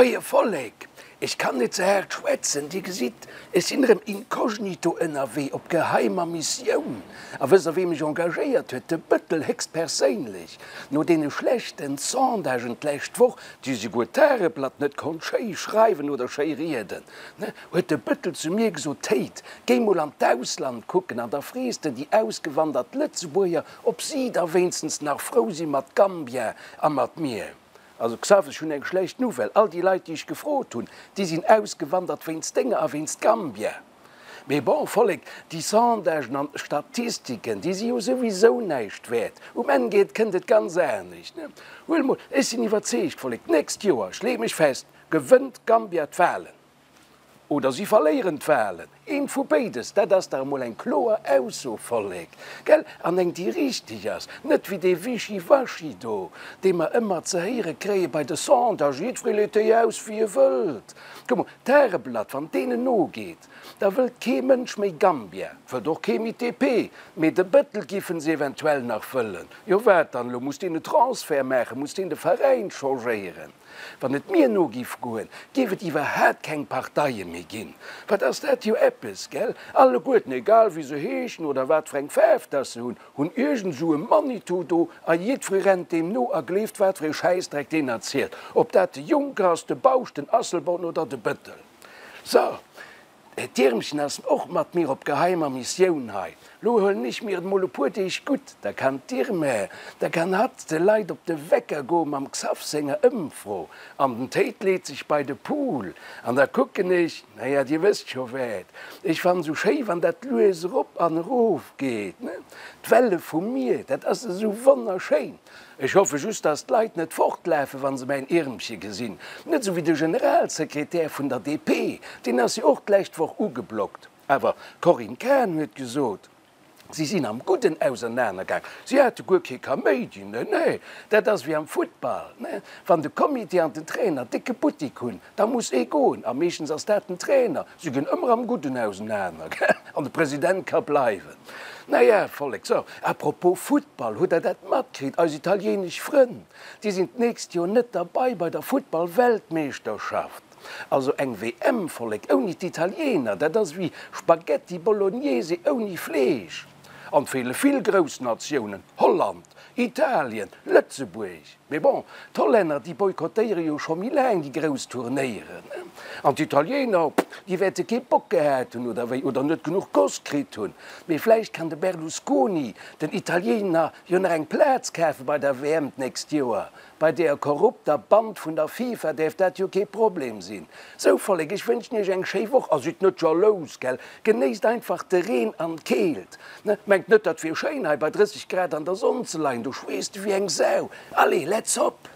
Moie Vollek, ech kann net ze haart schwätzen, dir gesitt, ech sinn erëm inkognito ënnerwee op geheimer Missioun. A wësst der wee mech engagéiert huet? De Bëttel héchstperséinlech. No deene schlechten Sondagen d'lescht Woch, déi souguer d'Tageblatt net konnt schéi schreiwen oder schéi rieden, huet de Bëttel zu mir gesot, Théid, géi mol an d'Ausland kucken an da frees de déi ausgewandert Lëtzebuerger, ob si da wéinstens nach frou si mat Gambia a mat mir. Also Xav, ech hunn eng schlecht Nouvelle, all déi Leit déi ech gefrot hunn, déi sinn ausgewandert wéinst denger a wéinst Gambia. Mee bon, Vollek, déi Sondagen an Statistiken, déi si jo souwisou näischt wäert. Um Enn geet, kënnt et ganz anescht, ne? Huel mol, ech sinn iwwerzeegt, Vollek, d'nächst Joer, ech leeë mech fest, gewënnt Gambia d'Wahlen. Oder si verléieren d'Wahlen. Eent vu béides. Dat ass dach emol eng kloer Ausso, Vollek, gell? An eng, déi richteg ass. Net wéi dee Wischiwaschi do, dee mer ëmmer ze héiere kréie bei de Sondagen, Jiddweree leet déi aus, wéi e wëllt. Kuck mol, d'Tageblatt, wann deenen nogeet, da wëllt kee Mënsch méi Gambia, wëllt och kee méi d'DP, mee de Bëttel giffen se eventuell nach wëllen. Jo, wat dann elo? Muss deen e Transfert maachen? Muss deen de Veräin changéieren? Wann et mir no giff goen, giff et iwwerhaat keng Parteie méi ginn. Wat ass dat jo eppes, gell? Alleguerten, egal wéi se heeschen oder wat fir eng Faarf dass se hunn, hunn iergend esou e Manitou do a jiddweree rennt deem no a gleeft wat fir ee Schäissdreck deen erzielt, ob dat de Juncker ass, de Bausch, den Asselborn oder de Bëttel. So. D'Iermchen ass och mat mir op geheimer Missioun hei. Lo huelen ech mir et mol e puer Deeg gutt, da kann d'Irme, da kann hatt de Leit op de Wecker goe mam Xaph senger Ëmfro. An den Théid leet sech bei de Pool an da kucken ech, naja, dir wësst scho wat. Ech fannen esou schéi, wann dat lues erop an erof geet, ne? D'Welle vum Mier, dat ass esou wonnerschéin. Ech hoffe just, dass d'Leit net fortlafen, wa se mäin Iermche gesinn. Net esou wéi de Generalsekretär vun der DP, deen ass jo och d'lescht Woch ugeblockt. Awer d'Corinne Cahen huet gesot, si sinn am Gudden ausernanergaang, si hate guer kee Kaméidi. Nee, nee, dat ass wéi am Futtball, wann de Comité an den Trainer décke Buttik hunn, Da muss ee goen, a meeschtens ass dat den Trainer. Si ginn ëmmer am Gudden ausenaner, gell? An de President ka bleiwen. Na ja, Vollek, so, à propos Futtball, hutt Der dat matkritt? Eis italienesch Frënn, déi sinn d'nächst Joer net derbei bei der Futtball-Weltmeeschterschaft. Also eng WM, Vollek, ouni d'Italiener, dat ass ewéi Spaghetti Bolognese ouni Fleesch. An 't feele vill grouss Natiounen, Holland, Italien, Lëtzebuerg. Mee bon, d'Hollänner, déi boykottéiere jo scho méi laang déi grouss Turnéieren. An d'Italiener, déi wäerte kee Bock gehat hunn, oder wéi, oder net genuch Goss kritt hunn. Mee vläicht kann de Berlusconi den Italiener jo nach eng Plaz kafe bei der WM d'nächst Joer. Bei deeër korrupter Band vun der FIFA däerf dat jo kee Problem sinn. Sou Vollek, ech wënschen iech eng schéi Woch a sidd net jalous, gell? Genéisst einfach de Reen an d'Keelt. Mengt net dat wier schéin hei bei 30 Grad an der Sonn ze leien, do schweesst de wéi eng Sau. Allez, let's hop!